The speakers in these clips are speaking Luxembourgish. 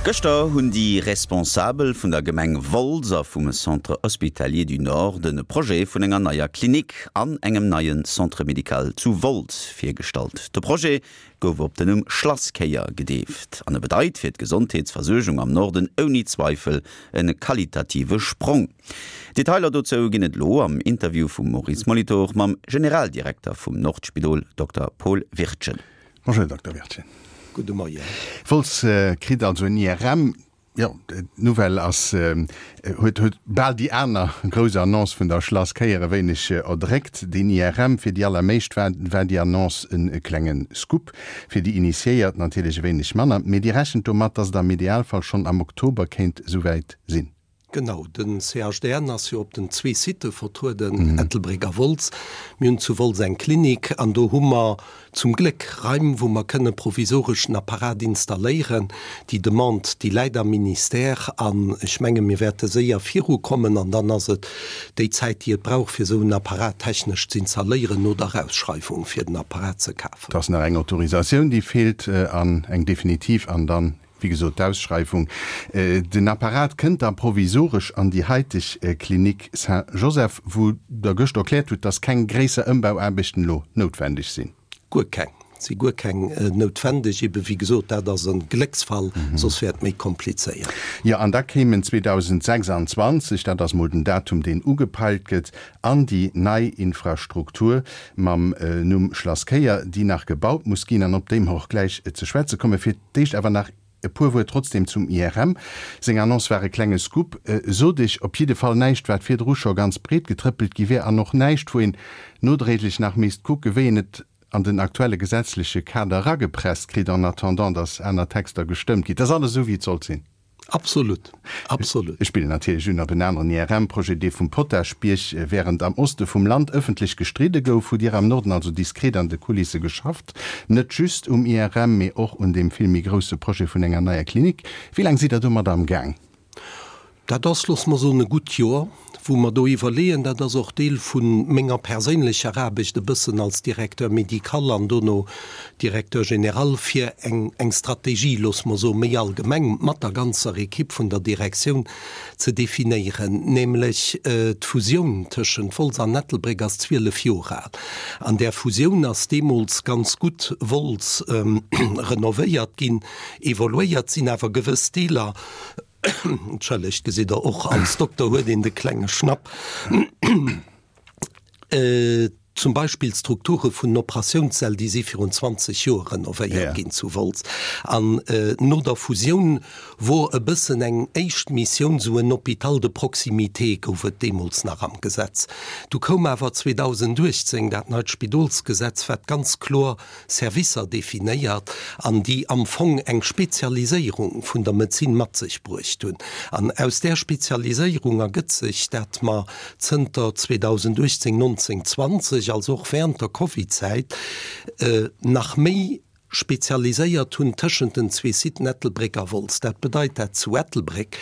Gëschter hunn déi Responsabel vun der Gemeng Wolz a vum Centre Hospitalier du Nord de Projet vun enger neier Klinik an engem neie Centre médical zu Wolz virgestallt. De Projet gouf op den Numm Schlasskéier gedeeft an e bedeit fir d'Gesondheetsversuergung am Norden ouni Zweifel e qualitative Sprong. Detailer dozou ginn et elo am Interview vum Maurice Molitor mam Generaldirekter vum Nordspidol, Dokter Paul Wirtgen. Bonjour Dokter Wirtgen. Gudde Moien. Wolz kritt also en IRM. Jo, d'Nouvelle ass, huet huet bal déi aner grouss Annonce vun der Schlasskéier e wéineg erdréckt. Deen IRM, fir déi allermeescht war war déi Annonce e klenge Scoop, fir déi Initiéiert natierlech e wéineg manner. Mee Dir rechent domat, datt et am Idealfall schonn am Oktober kéint esouwäit sinn? Genau, den CHDN ass jo op den zwee Sitte vertrueden, Ettelbréck a Wolz. Mir hunn zu Wolz eng Klinik an do hu mer zum Gléck Raim, wou mer kënne provisoresch den Apparat installéieren. Déi Demande, déi läit am Ministère an ech menge mir wäerte séier virukommen an dann ass et déi Zäit, déi et brauch, fir esou en Apparat technesch z'installéieren no der Ausschreiwung, fir den Apparat ze kafen. Et ass nach eng Autorisatioun, déi feelt an eng definitiv an dann Wéi gesot, d'Ausschreiwung. Den Apparat kënnt da provisoresch an déi haiteg Clinique Saint-Joseph, wou Der gëscht erkläert hutt, dass keng gréisser Ëmbauaarbechten elo noutwendeg sinn. Guer keng. Et si guer keng noutwendeg. Ebe wéi gesot, dat ass e Glécksfall, soss wär et méi komplizéiert. Jo, an da kéimen 2026, dat ass mol den Datum, deen ugepeilt gëtt, an déi nei Infrastruktur mam Numm Schlasskéier, déi nach gebaut muss ginn an op déi mer och gläich ze schwätze kommen. Fir d'éischt awer nach e puer Wuert trotzdem zum IRM. Seng Annonce war e klenge Scoop, sot ech. Op jidde Fall näischt, wat virdru scho ganz breet getrëppelt gi wär an och näischt, wou een nodréiglech nach misst kucken, wéi een et an den aktuelle gesetzleche Kader eragepresst kritt, en attendant, datt aner Texter gestëmmt ginn. Et ass alles esou, wéi et sollt sinn. Absolut, absolut. Ech spillen natierlech un op en aneren IRM-Projet, dee vum Potaschbierg. Während am Oste vum Land ëffentlech gestridde gouf, hutt Dir am Norden also diskret an de Kulisse geschafft. Net just um IRM, mee och un deem vill méi grousse Projet vun enger neier Klinik. Wéi laang sidd Der domat am Gaang? Dat ass, loosse mer soen, e gutt Joer, wou mer do iwwerleeën. Dat ass och Deel vu menger perséinlecher Aarbecht e bëssen als Directeur médical an dono Directeur général, fir eng eng Strategie, loosse mer soen, méi allgemeng mat der ganzer Equipe vun der Direktioun ze definéieren. Nämlech d'Fusioun tëschent Wolz an Ettelbréck ass 12 Joer al. An där Fusioun ass deemools ganz gutt Wolz renovéiert ginn, evoluéiert sinn awer gewëss Deeler, Entschëllegt, gesitt Der, och als Dokter huet een de klenge Schnapp. Zum Beispill d'Strukture vun den Operatiounssäll, déi si virun 20 Joer renovéiert ginn zu Wolz. An no der Fusioun wor e bëssen eng éischt Missioun, esou en Hôpital de proximité gouf et deemools nach am Gesetz. Du koum awer 2018 dat neit Spidolsgesetz, wat ganz kloer Servicer definéiert an déi am Fong eng Spezialiséierung vun der Medezin mat sech bruecht hunn. An aus där Spezialiséierung ergëtt sech, dat mer zënter 2018, 19, 20, also och während der Covidzäit, nach méi spezialiséiert hunn tëschent den zwee Siten Ettelbréck a Wolz. Dat bedeit, dat zu Ettelbréck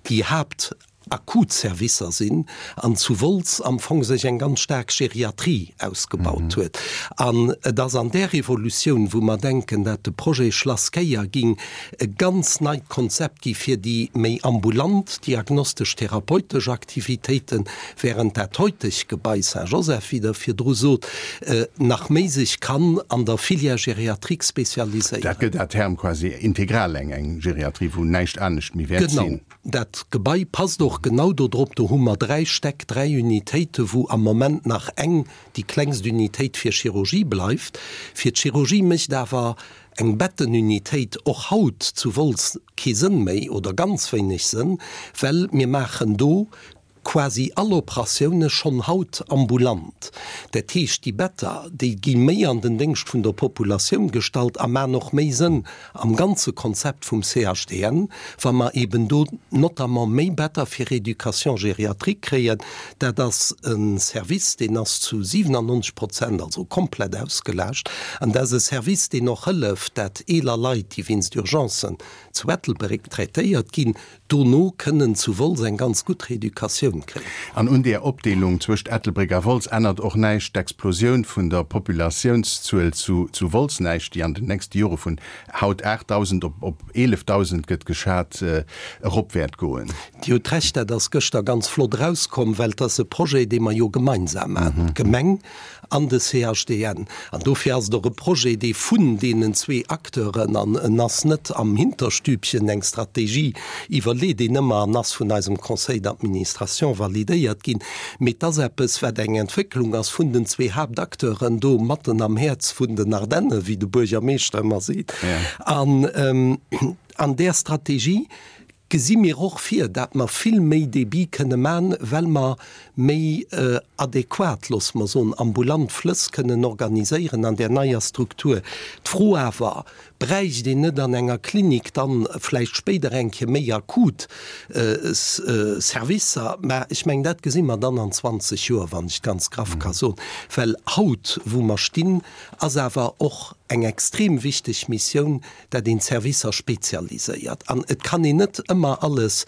déi Haapt akut Servicer sinn an zu Wolz am Fong sech eng ganz staark Geriatrie ausgebaut huet. An et ass an där Evolutioun, wou mer denken, dat de Projet Schlass Kéier ging e ganz neit Konzept gi fir déi méi ambulant diagnostesch-therapeutesch Aktivitéiten, während dat heuteg Gebai Saint-Joseph, wéi Der virdru sot, nach méi sech kann an der Filière gériatrique spezialiséieren. Dat gëtt à terme quasi integral eng Geriatrie, wou näischt anescht méi wäert sinn. Genau. Dat Gebai passt och genau do drop. Do hu mer dräi Stäck, dräi Unitéiten, wou am Moment nach eng, déi klengst Unitéit fir Chirurgie bleift. Fir d'Chirurgie mécht awer eng Bettenunitéit och haut zu Wolz kee Sënn méi oder ganz wéineg Sënn, well mir maachen do quasi all Operatioune schonn haut ambulant. Dat heescht, déi Better, déi gi méi an den Déngscht vun der Populatioun gestallt a man och méi Sënn am ganze Konzept vum CHDN, wa mer eben do notamment méi Better fir Rééducation gériatrique kréien. Dat ass e Service, deen ass zu 97 Prozent, also komplett ausgelaascht. An dat ass e Service, deen och hëlleft, dat eeler Leit, déi wéinst Urgencen zu Ettelbréck traitéiert ginn, Dono kënnen zu Wolz eng ganz gutt Reeducatioun. Dotatioun kréien. An un där Opdeelung zwëscht Ettelbréck a Wolz ännert och näischt d'Explosioun vun der Populatiounszuel zu Wolz näischt, déi an den nächste Jore vun haut 8.000 op 11.000, gëtt geschat, erop wäert goen. Dir hutt Recht, dat ass gëschter ganz flott erauskomm, well et ass e Projet, dee mer jo gemeinsam maachen, d'Gemeng an de CHDN. An dofir ass et och e Projet, dee vun deenen zwee Acteuren, an en ass net am Hinterstübchen eng Strategie iwwerleet een ëmmer an ass vun eisem Conseil d'administration validéiert ginn, mee et ass eppes, wat eng Entwécklung ass vun den zwee Haaptacteuren do matten am Häerz vun den Ardennen, wéi de Buergermeeschter ëmmer seet. An an där Strategie gesi mir och vir, dat mer vill méi Débit kënne man, well mer méi adequat, loosse mer soen, ambulant Flëss kënnen organiséieren an där neier Struktur. D'Fro awer, Bräicht een net an enger Klinik dann vläicht spéider eng Kéier méi akut Servicer? Mä ech mengen, dat gesi mer dann an 20 Joer, wann ech et ganz graff ka soen, well haut, wou mer stinn, ass awer och eng extrem wichteg Missioun, dat een d'Servicer spezialiséiert. An et kann een net ëmmer alles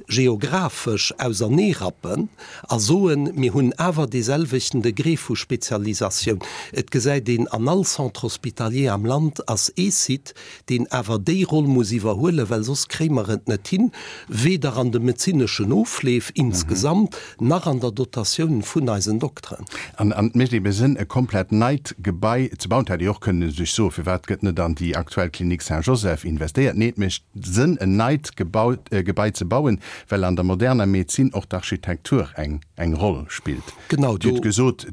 geographesch auserneerappen a soen, mir hunn awer deeselwechten Degré vu Spezialisatioun. Et gesäit een, an all Centre hospitalier am Land ass ee Site, deen awer déi Roll muss iwwerhuelen, well soss kréie mer et net hin, weder an de medezineschen Ofleef insgesamt nach an der Dotatioun vun eisen Dokteren. An et mécht ebe Sënn, e komplett neit Gebai ze bauen. Et hätt ee och kënnen sech soen, Firwat gëtt net an déi aktuell Clinique Saint-Joseph investéiert? Nee, et mécht Sënn, en neit Gebai ze bauen, well an der moderner Medezin och d'Architektur eng Roll spillt. Genau, Dir hutt gesot,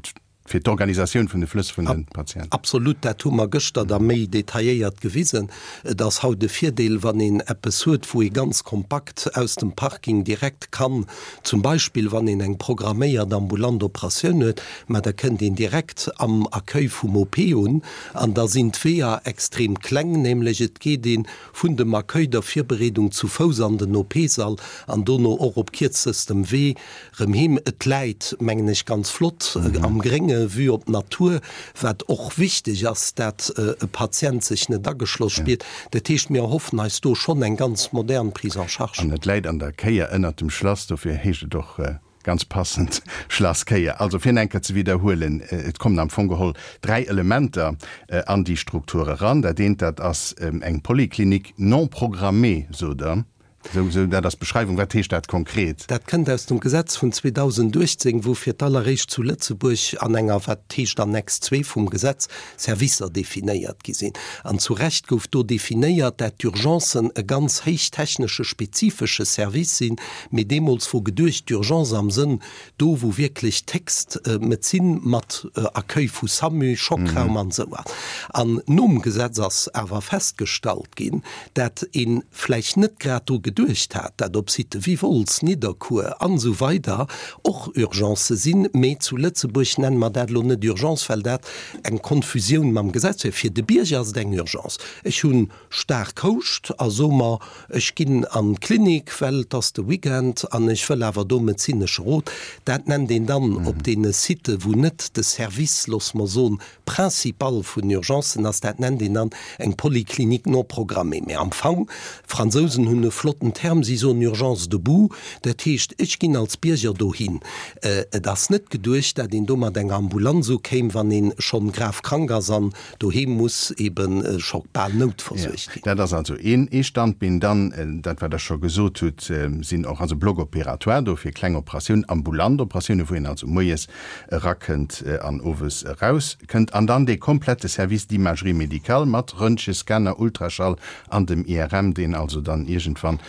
fir d'Organisatioun vun de Flëss vun de Patienten. Absolut, dat hu mer gëschter da méi detailléiert gewisen. Et ass haut e Virdeel, wann een eppes huet, wou ee ganz kompakt aus dem Parking direkt kann, zum Beispill wann een eng programméiert ambulant Operatioun huet, mä da kënnt een direkt am Accueil vum OP un an da sinn d'Weeër extrem kleng, nämlech et geet ee vun dem Accueil, der Virbereedung zu Fouss an den OP-Sall an dono och op kierzestem Wee Rëm heem. Et läit, mengen ech, ganz flott am Grénge, Vue op d'Natur, wat och wichteg ass, dat e Patient sech net ageschloss spiert. Dat heescht, mir erhoffen eis do schonn eng ganz modern Prise en charge. An et läit an der Kéier ënnert dem Schlass, dofir heescht et och ganz passend Schlass Kéier. Also fir eng Kéier ze widderhuelen, et kommen am Fong geholl 3 Elementer an déi Struktur eran. Dat eent, dat ass eng Polyclinique non programmée, sot Der. Sou, sou, dat ass d'Beschreiwung. Wat heescht dat konkret? Dat kënnt aus dem Gesetz vun 2018, wou fir d'alleréischt zu Lëtzebuerg an enger, wat heescht Annex 2 vum Gesetz, Servicer definéiert gi sinn. An zu Recht gouf do definéiert, dat d'Urgencen e ganz héich technesche spezifesche Service sinn, mee deemools wor geduecht, d'Urgence am Sënn do wou wierklech d'héchst Medezin mat Accueil vu SAMU, Schockraum an esou ass. An nom Gesetz ass awer festgestallt ginn, dat ee vläicht net grad dru geduecht hat, dat op Sitë wéi Wolz, Nidderkuer an esou weider och Urgencë sinn, mee zu Lëtzebuerg nenne mer dat elo net Urgence, well dat eng Konfusioun mam Gesetz wär. Fir de Bierger ass et eng Urgence. Ech hunn staark Houscht a so mer, ech ginn an d'Klinik, well et ass de Weekend an ech wëll awer do medezinesche Rot. Dat nennt een dann op deene Sitë wou net de Service, loosse mer soen, principal vun Urgencen ass, dat nennt een dann eng Polyclinique non programmée. Mä am Fong, d'Fransousen hunn e flotten Term, si soen Urgence debout, dat heescht, ech ginn als Bierger dohin. Et ass net geduecht, dat een do mat enger Ambulanz ukéim, wann ee schonn grav krank ass an Doheem muss eben scho bal noutversuergt ginn. Dat ass also een ee Standbeen. Dann, dat wat Der scho gesot hutt, sinn och also Blocs opératoires do fir kleng Operatiounen, ambulant Operatiounen, wou een also moies erakënnt an owes erauskënnt. An dann dee komplette Service d'imagerie médicale mat Röntgen, Scanner, Ultraschall an dem IRM, deen also dann iergendwann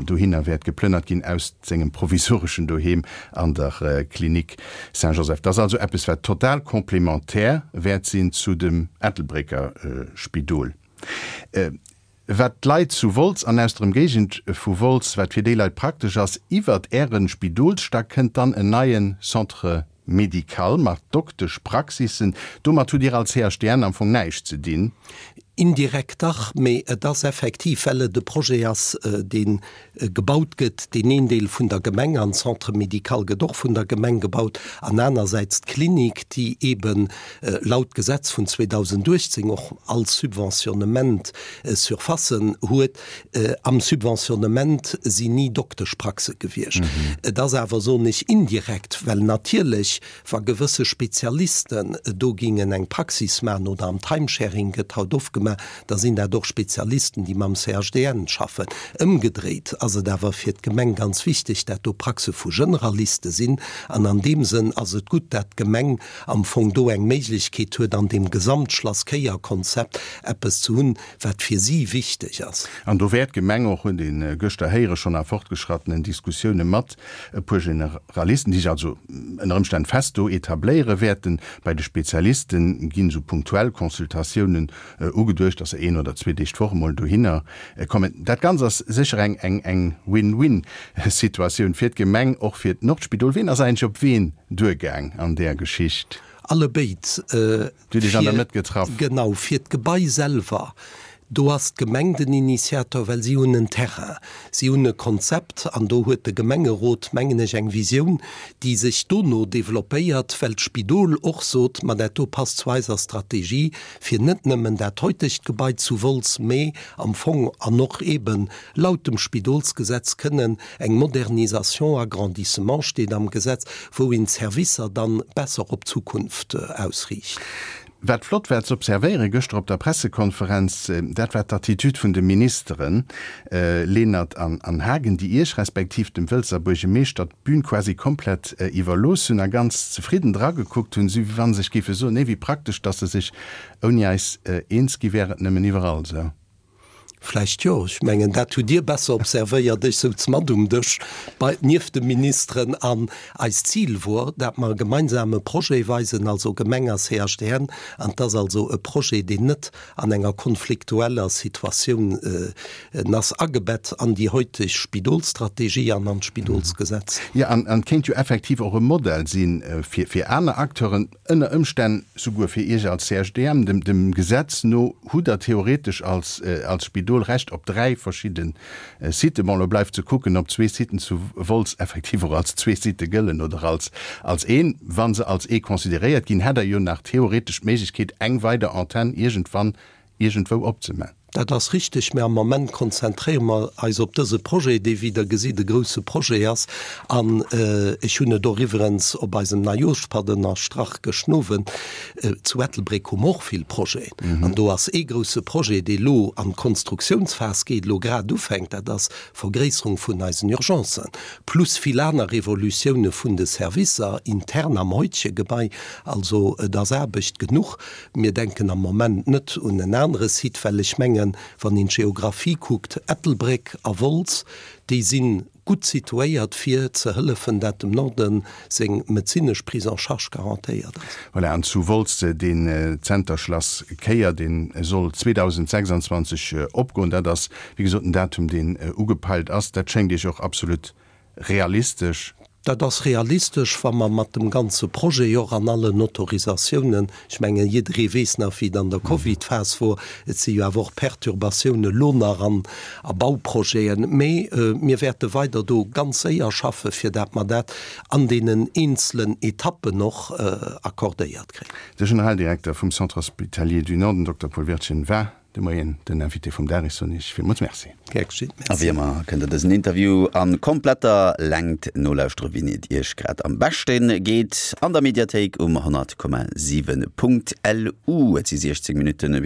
dohinner wäert geplënnert ginn aus sengem provisoreschen Doheem an der Clinique Saint-Joseph. Dat ass also eppes, wat total complémentaire wäert sinn zu dem Ettelbrécker Spidol. Wat d'Leit zu Wolz an aus der Emgéigend vu Wolz, wat fir déi Leit praktesch ass, iwwert Äre Spidolsstack kënnt dann en neie Centre médical mat Dokteschpraxissen. Domat hutt Dir als CHDN am Fong näischt ze dinn. Indirekt dach, mee et ass effektiv, well et e Projet ass, dee gebaut gëtt, deen een Deel vun der Gemeng, an d'Centre médical gëtt och vun der Gemeng gebaut, an anersäits d'Klinik, déi eeben laut Gesetz vun 2018 och all Subventionnement Surfacen huet. Am Subventionnement sinn ni Dokteschpraxe gewiescht. Et ass awer, soen ech, indirekt, well natierlech Wa gewësse Spezialisten do gingen eng Praxis maachen, oder am Timesharing gëtt haut oft gemaach, da sinn dat och Spezialisten, déi mam CHDN schaffen. Ëmgedréit ass et awer fir d'Gemeng ganz wichteg, dat do Praxe vu Generaliste sinn. An an deem Sënn ass et gutt, dat d'Gemeng am Fong do eng Méiglechkeet huet, an deem Gesamtschlass-Kéier-Konzept eppes ze hunn, wat fir si wichteg ass. An do wäert d'Gemeng och, huet ee gëschter héiere schonn a fortgeschrattenen Diskussioune mat e puer Generalisten, déi sech also ënner Ëmstänn fest do etabléiere wäerten. Bei de Spezialiste ginn esou punktuell Consultatiounen ugeduecht, dass se een oder zwee Deeg d'Woch emol dohinner kommen. Dat Ganzt ass sécher eng eng Win-win-Situatioun fir d'Gemeng, och fir d'Nordspidol. Wien ass eigentlech op wien duergaang an där Geschicht? Allebéid. Dir hutt Iech an der Mëtt getraff. Genau, fir d'Gebai selwer, do ass d'Gemeng den Initiator, well si hunn en Terrain, si hunn e Konzept an do huet de Gemengerot, mengen ech, eng Visioun, déi sech dono developpéiert, well d'Spidol och sot, ma dat do passt zu eiser Strategie, fir net nëmmen dat heutegt Gebai zu Wolz, mä am Fong an och eeben laut dem Spidolsgesetz kënnen Eng Modernisation, Agrandissement steet am Gesetz, wou een d'Servicer dann besser op d'Zukunft ausriicht. Wat flott war ze observéieren gëschter op der Pressekonferenz, dat war d'Attitude vun de Ministeren Lenert an Haagen, déi Iech respektiv dem Wëlzer Buergemeeschter d'Bün quasi komplett iwwerlooss hunn a ganz zefridden dragekuckt hunn, esou wéi wa se sech géife soen, Nee, wéi praktesch, datt se sech ouni eis eens gi wären, et nëmmen iwwerall esou. Vläicht jo. Ech mengen, dat hutt Dir besser observéiert. Ech souz mat um Dësch bei, nieft de Ministeren. An eist Zil wor, dat mer e gemeinsame Projet weisen, also Gemeng a CHDN. An et ass also e Projet, deen net an enger konfliktueller Situatioun ass, agebett an déi heuteg Spidolsstrategie an an d'Spidolsgesetz. Jo, an et kéint jo effektiv och e Modell si fir aner Acteuren. Ënner Ëmstänn souguer fir Iech als CHDM. Dem Gesetz no hutt Der theoretesch als Spidol Recht op 3 verschidde Siten. Bon, elo bleift ze kucken, ob zwee Siten zu Wolz effektiv och als zwee Sitë gëllen oder als een. Wa se als ee consideréiert ginn, hätt Der jo nach theoretesch d'Méiglechkeet, eng weider Antenn iergendwann iergendwou opzeman. Dat ass richtig, mä am Moment konzentréiere mer eis op dëse Projet, dee, wéi Der gesitt, e grouse Projet ass. An ech hunn et och iwwerens op eisem Neijooschpatt ënnerstrach gëschten Owend, Zu Ettelbréck hu mer och vill Projeten. An do ass ee grouse Projet, dee elo an d'Konstruktionsphas geet, elo grad ufänkt, dat ass d'Vergréisserung vun eisen Urgencen, plus vill aner Evolutioune vun de Servicer intern am heutege Gebai. Also et ass Aarbecht genuch. Mir denken am Moment net un en anere Site, well ech mengen, wann een d'Geographie kuckt, Ettelbréck a Wolz, déi si gutt situéiert, fir ze hëllefen, dat dem Norde seng medezinesch Prise en charge garantéiert ass. Voilà, an zu Wolz deen Zenter Schlass Kéier, dee soll 2026 opgoen. Dat ass, wéi gesot, den Datum, deen ugepeilt ass. Dat schéngt Iech och absolut realistesch? Dat ass realistesch, wa mer mat dem ganze Projet och an allen Autorisatiounen, ech mengen, jidderee weess nach, wéi et an der Covidphas wor, et si jo awer och Perturbatiounen elo nach an a Bauprojeten, mee mir wäerte weider do ganz séier schaffen, fir dat mer dat an deenen eenzelen Etappen och accordéiert kréien. De Generaldirekter vum Centre hospitalier du Nord, den Dokter Paul Wirtgen, war De Moien den Invité vum Dag. Ech soen Iech villmools Merci. Gär geschitt, Merci. A wéi ëmmer kënnt der dësen Interview a kompletter Längt nolauschtere wéini et Iech grad am beschte geet an der Mediathéik um 100,7.lu. Et si 16 Minutten bis.